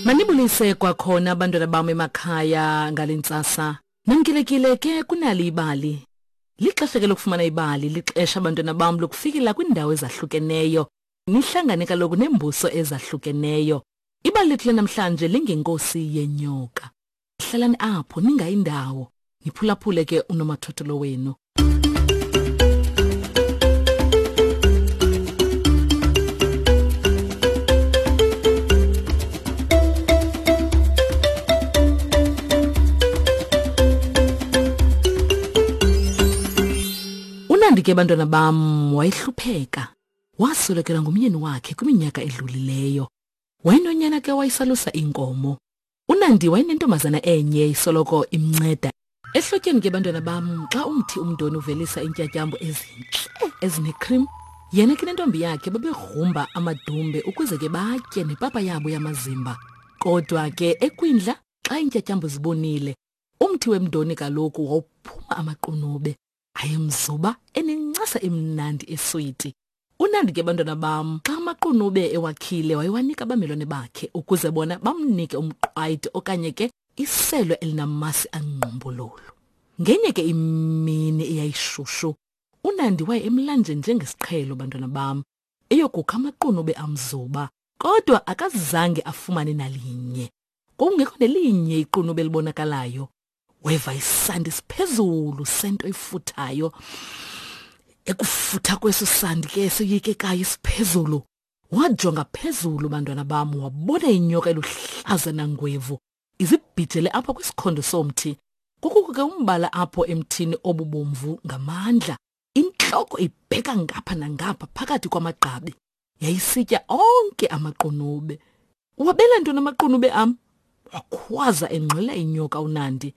Manibulise kwakhona abantwana bam emakhaya ngale ntsasa. Namkelekile ke kunali ibali. Lixesha ke lokufumana ibali, lixesha abantwana bam lokufikela kwiindawo ezahlukeneyo. Nihlangane kaloku neembuso ezahlukeneyo. Ibali lethu lanamhlanje lingenkosi yenyoka. Hlalani apho ningayi ndawo. Niphulaphule ke unomathotholo wenu. Unandi ke bantwana bam wayehlupheka. Waswelekelwa ngumyeni wakhe kwiminyaka edlulileyo. Wayenonyana ke wayesalusa iinkomo. Unandi wayenentombazana enye isoloko imnceda. Ehlotyeni ke bantwana bam xa umthi umdoni uvelisa iintyatyambo ezintle ezinecream, yena ke nentombi yakhe babegrumba amadumbe ukuze ke batye nepapa yabo yamazimba. Kodwa ke ekwindla xa iintyatyambo zibonile, umthi wemdoni kaloku wawuphuma amaqunube. Ayemzuba enencasa emnandi eswiti. Unandi ke bantwana bam xa amaqunube ewakhile wayewanika abamelwane bakhe ukuze bona bamnike umqwayito okanye ke iselo elinamasi angqumbululu. Ngenye ke imini eyayishushu uNandi waye emlanjeni njengesiqhelo bantwana bam eyokukha amaqunube amzuba kodwa akazange afumane nalinye. Kwakungekho nelinye iqunube elibonakalayo. Weva isandi siphezulu sento ifuthayo. Ekufutha kweso sandi ke soyikekayo siphezulu. Wajonga phezulu bantwana bam wabona inyoka eluhlaza nangwevu izibhijele apha kwisikhondo somthi. Kukho ke umbala apho emthini obubomvu ngamandla. Intloko ibheka ngapha nangapha phakathi kwamagqabi. Yayisitya onke amaqunube. Wabela ntoni amaqunube am? Wakhwaza engxola inyoka uNandi.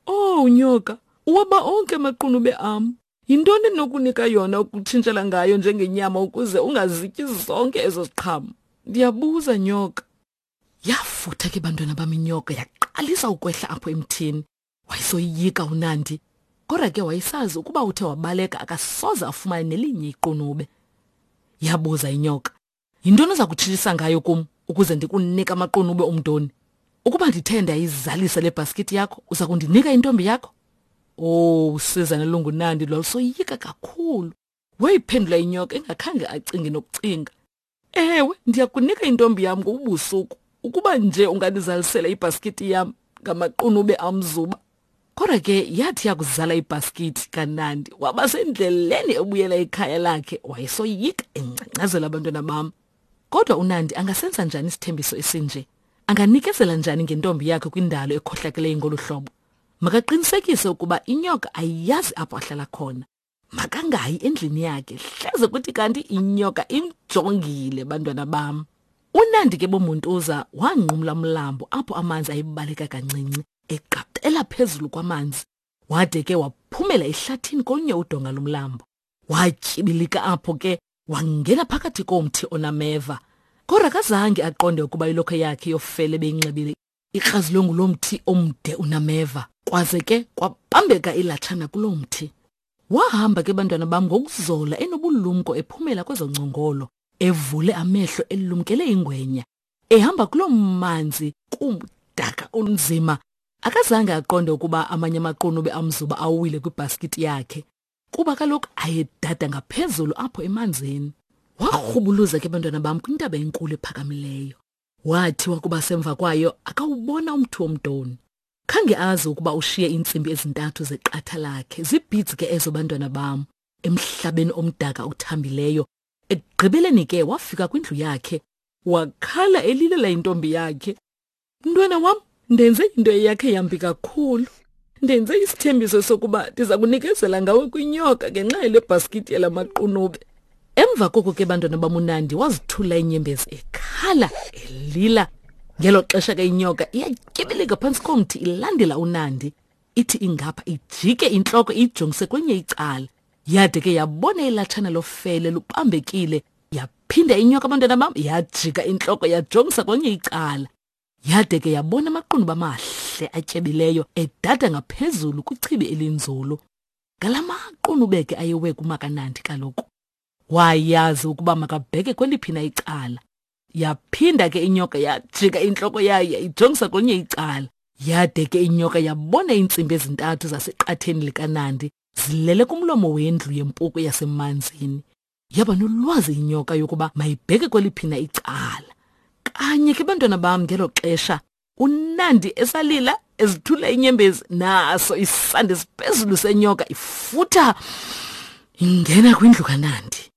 Oh nyoka, uwaba onke amaqunube am. Yintoni endinokunika yona ukutshintshela ngayo njengenyama ukuze ungazityi zonke ezo ziqhamo? Ndiyabuza nyoka. Yafutha ke bantwana bam inyoka yaqalisa ukwehla apho emthini. Wayesoyika uNandi. Kodwa ke wayesazi ukuba uthe wabaleka akasoze afumane nelinye iqunube. Yabuza inyoka, Yintoni oza kutshintshisa ngayo kum ukuze ndikunike amaqunube omdoni? Ukuba ndithe ndayizalisa le bhaskithi yakho, uza kundinika intombi yakho? Oh, usizana lunguNandi lwalusoyika kakhulu. Wayiphendula inyoka engakhange acinge nokucinga. Ewe, ndiyakunika intombi yam ngobubusuku ukuba nje ungandizalisela ibhaskithi yam ngamaqunube amzuba. Kodwa ke yathi yakuzala ibhaskithi kaNandi waba sendleleni ebuyela ekhaya lakhe wayesoyika engcangcazela abantwana bam. Kodwa uNandi angasenza njani isithembiso esinje? Anganikezela njani ngentombi yakhe kwindalo ekhohlakeleyo ngolu hlobo? Makaqinisekise ukuba inyoka ayiyazi apho ahlala khona. Makangayi endlini yakhe hleze kuthi kanti inyoka imjongile bantwana bam. Unandi ke bomuntuza wanqumla umlambo apho amanzi ayebaleka kancinci eqaqela phezulu kwamanzi wade ke waphumela ehlathini kolunye udonga lomlambo. Watyibilika apho ke wangena phakathi komthi onameva. Kodwa akazange aqonde ukuba ilokhwe yakhe yofele beyinxibile ikrazilwe ngulo mthi omde unameva kwaze ke kwabambeka ilatshana kuloo mthi. Wahamba ke bantwana bam ngokuzola enobulumko ephumela kwezo ngcongolo, evule amehlo elumkele ingwenya. Ehamba kuloo manzi kumdaka olunzima. Akazange aqonde ukuba amanye amaqunube amzuba awile kwibhaskiti yakhe. Kuba kaloku ayedada ngaphezulu apho emanzini. Warhubuluza ke bantwana bam kwintaba enkulu ephakamileyo. Wathi wakuba semva kwayo akawubona umthi womdoni. Khange azi ukuba ushiye iintsimbi ezintathu zeqatha lakhe, zibhids ke ezo bantwana bam, emhlabeni omdaka othambileyo. Ekugqibeleni ke wafika kwindlu yakhe, wakhala elilela intombi yakhe. Mntwana wam, ndenze into eyakhe yambi kakhulu. Ndenze isithembiso sokuba ndiza kunikezela ngawe kwinyoka ngenxa yale bhaskithi yala maqunube. Emva koko ke bantwana bamunandi wazithula inyembezi ekhala elila. Ngelo xesha ke inyoka iyatyibilika phantsi komthi ilandela uNandi. Ithi ingapha ijike intloko iyijongise kwenye icala. Yade ke yabona ilatshana lofele lubambekile. Yaphinda inyoka abantwana bam yajika intloko yajongisa kwenye icala. Yade ke yabona amaqunube amahle atyebileyo edada ngaphezulu kwichibi elinzulu. Ngala maqunube ke ayewe kumakanandi kaloku. Wayazi ukuba makabheke kweliphi na icala. Yaphinda ke inyoka yajika intloko yayo yayijongisa kwelinye icala. Yade ke inyoka yabona iintsimbi ezintathu zaseqatheni likaNandi zilele kumlomo wendlu yempuku yasemanzini. Yaba nolwazi inyoka yokuba mayibheke kweliphina icala. Kanye ke bantwana bam ngelo xesha uNandi esalila ezithula inyembezi naso isandi esiphezulu senyoka ifutha ingena kwindlu kaNandi.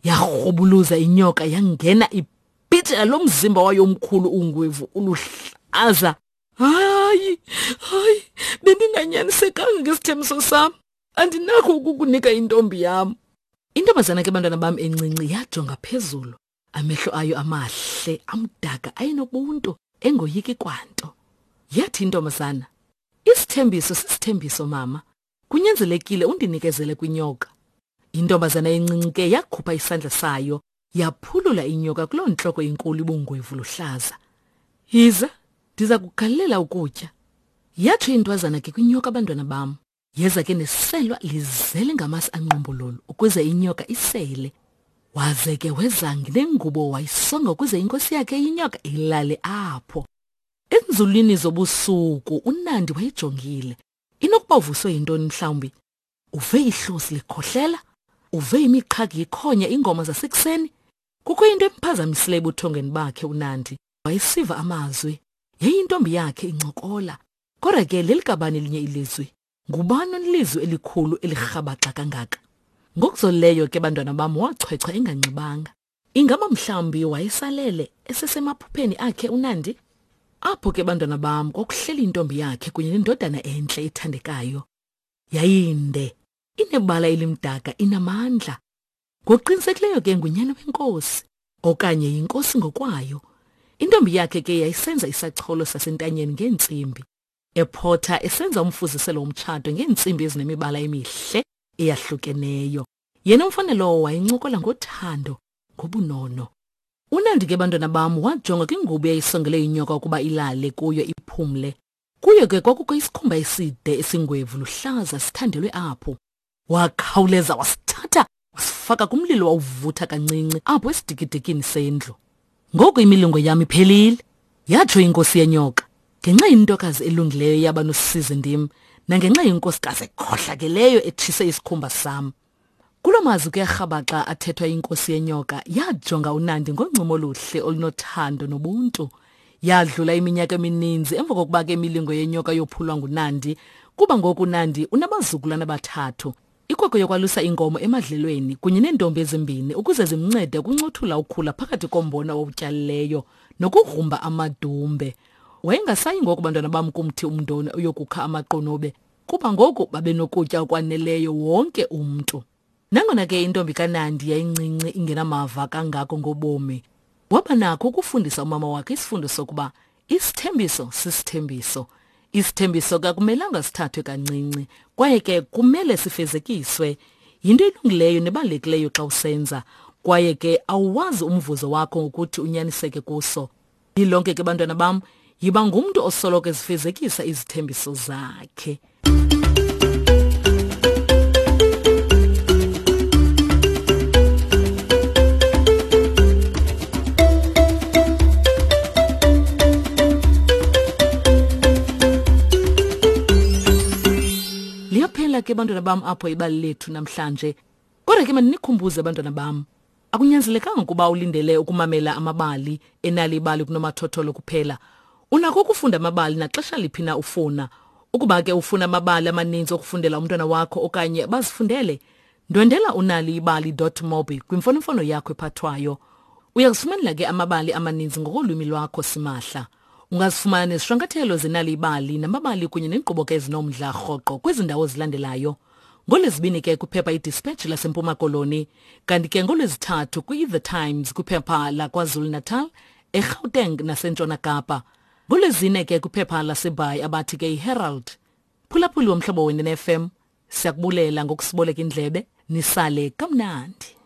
Yarhubuluza inyoka yangena ibhijela lo mzimba wayo omkhulu ungwevu uluhlaza. Hayi, hayi, bendinganyanisekanga ngesithembiso sam. Andinakho ukukunika intombi yam. Intombazana ke bantwana bam encinci yajonga phezulu. Amehlo ayo amahle amdaka ayenobuntu engoyiki kwanto. Yathi intombazana, Isithembiso sisithembiso mama. Kunyanzelekile undinikezele kwinyoka. Intombazana encinci ke yakhupha isandla sayo yaphulula inyoka kuloo ntloko inkulu ibungwevu luhlaza. Yiza, ndiza kugalela ukutya. Yatsho intwazana ke kwinyoka abantwana bam. Yeza ke neselwa lizele ngamasi anqumbololo ukuze inyoka isele. Waze ke weza nengubo wayisonga ukuze inkosi yakhe inyoka ilale apho. Enzulwini zobusuku uNandi wayejongile. Inokuba uvuswe yintoni mhlawumbi? Uve ihlosi likhohlela? Uve imiqhagi ikhonya ingoma zasekuseni? Kukho into emphazamisileyo ebuthongweni bakhe uNandi. Wayesiva amazwi. Yayintombi yakhe incokola. Kodwa ke lelikabani elinye ilizwi? Ngubani onelizwi elikhulu elirhabaxa kangaka? Ngokuzolileyo ke bantwana bam wachwechwa enganxibanga. Ingaba mhlawumbi wayesalele esesemaphupheni akhe uNandi? Apho ke bantwana bam kwakuhleli intombi yakhe kunye nendodana entle ethandekayo. Yayinde, inebala elimdaka, inamandla. Ngokuqinisekileyo ke ngunyana wenkosi okanye yinkosi ngokwayo. Intombi yakhe ke yayisenza isacholo sasentanyeni ngeentsimbi. Ephotha esenza umfuziselo womtshato ngeentsimbi ezinemibala emihle eyahlukeneyo. Yena umfana lowo wayencokola ngothando, ngobunono. UNandi ke bantwana bam wajonga kwingubo eyayisongele inyoka ukuba ilale kuyo iphumle. Kuyo ke kwakukho isikhumba eside esingwevu luhlaza sithandelwe apho. Wakhawuleza wasithatha wasifaka kumlilo wawuvutha kancinci apho esidikidikini sendlu. Ngoku imilingo yam iphelile, yatsho inkosi yenyoka. Ngenxa yentokazi elungileyo yaba nosizi ndim, nangenxa yenkosikazi ekhohlakeleyo etshise isikhumba sam. Kuloo mazwi kuyarhabaxa athethwa inkosi yenyoka yajonga uNandi ngoncumo oluhle olunothando nobuntu. Yadlula iminyaka emininzi emva kokuba ke imilingo yenyoka yophulwa nguNandi, kuba ngoku uNandi unabazukulwana abathathu. Ikwekwe yokwalusa iinkomo emadlelweni kunye neentombi ezimbini ukuze zimncede ukuncothula ukhula phakathi kombona owutyalileyo nokugrumba amadumbe. Wayengasayi ngoku bantwana bam kumthi umndoni uyokukha amaqunube kuba ngoku babenokutya okwaneleyo wonke umntu. Nangona ke intombi kaNandi yayincinci ingenamava kangako ngobomi, waba nakho ukufundisa umama wakhe isifundo sokuba isithembiso sisithembiso. Isithembiso kakumelanga sithathwe kancinci kwaye ke kumele sifezekiswe. Yinto elungileyo nebalulekileyo xa usenza kwaye ke awuwazi umvuzo wakho ngokuthi unyaniseke kuso. Lilonke ke bantwana bam, yiba ngumntu osoloko ezifezekisa izithembiso zakhe. Liyaphela ke bantwana bam apho ibali lethu namhlanje. Kodwa ke mandinikhumbuze bantwana bam, Akunyanzelekanga ukuba ulindele ukumamela amabali enali ibali kunomathotholo kuphela. Unako ukufunda amabali naxesha liphi na ufuna. Ukuba ke ufuna amabali amaninzi okufundela umntwana wakho okanye bazifundele, ndwendela unaliibali.mobi kwimfonomfono yakho ephathwayo. Uya kuzifumanela ke amabali amaninzi ngokolwimi lwakho simahla. Ungazifumana nezishwankathelo zenali ibali namabali kunye neenkqubo ke ezinomdla rhoqo kwezi ndawo zilandelayo. NgoLwezibini ke kwiphepha iDispatch laseMpuma Koloni, kanti ke ngoLwezithathu kwi-The Times kwiphepha laKwaZulu-Natal, eGauteng naseNtshona Kapa. NgoLwezine ke kwiphepha laseBhayi abathi ke iHerald. Phulaphuli womhlobo wenene FM, siyakubulela ngokusiboleka indlebe, nisale kamnandi.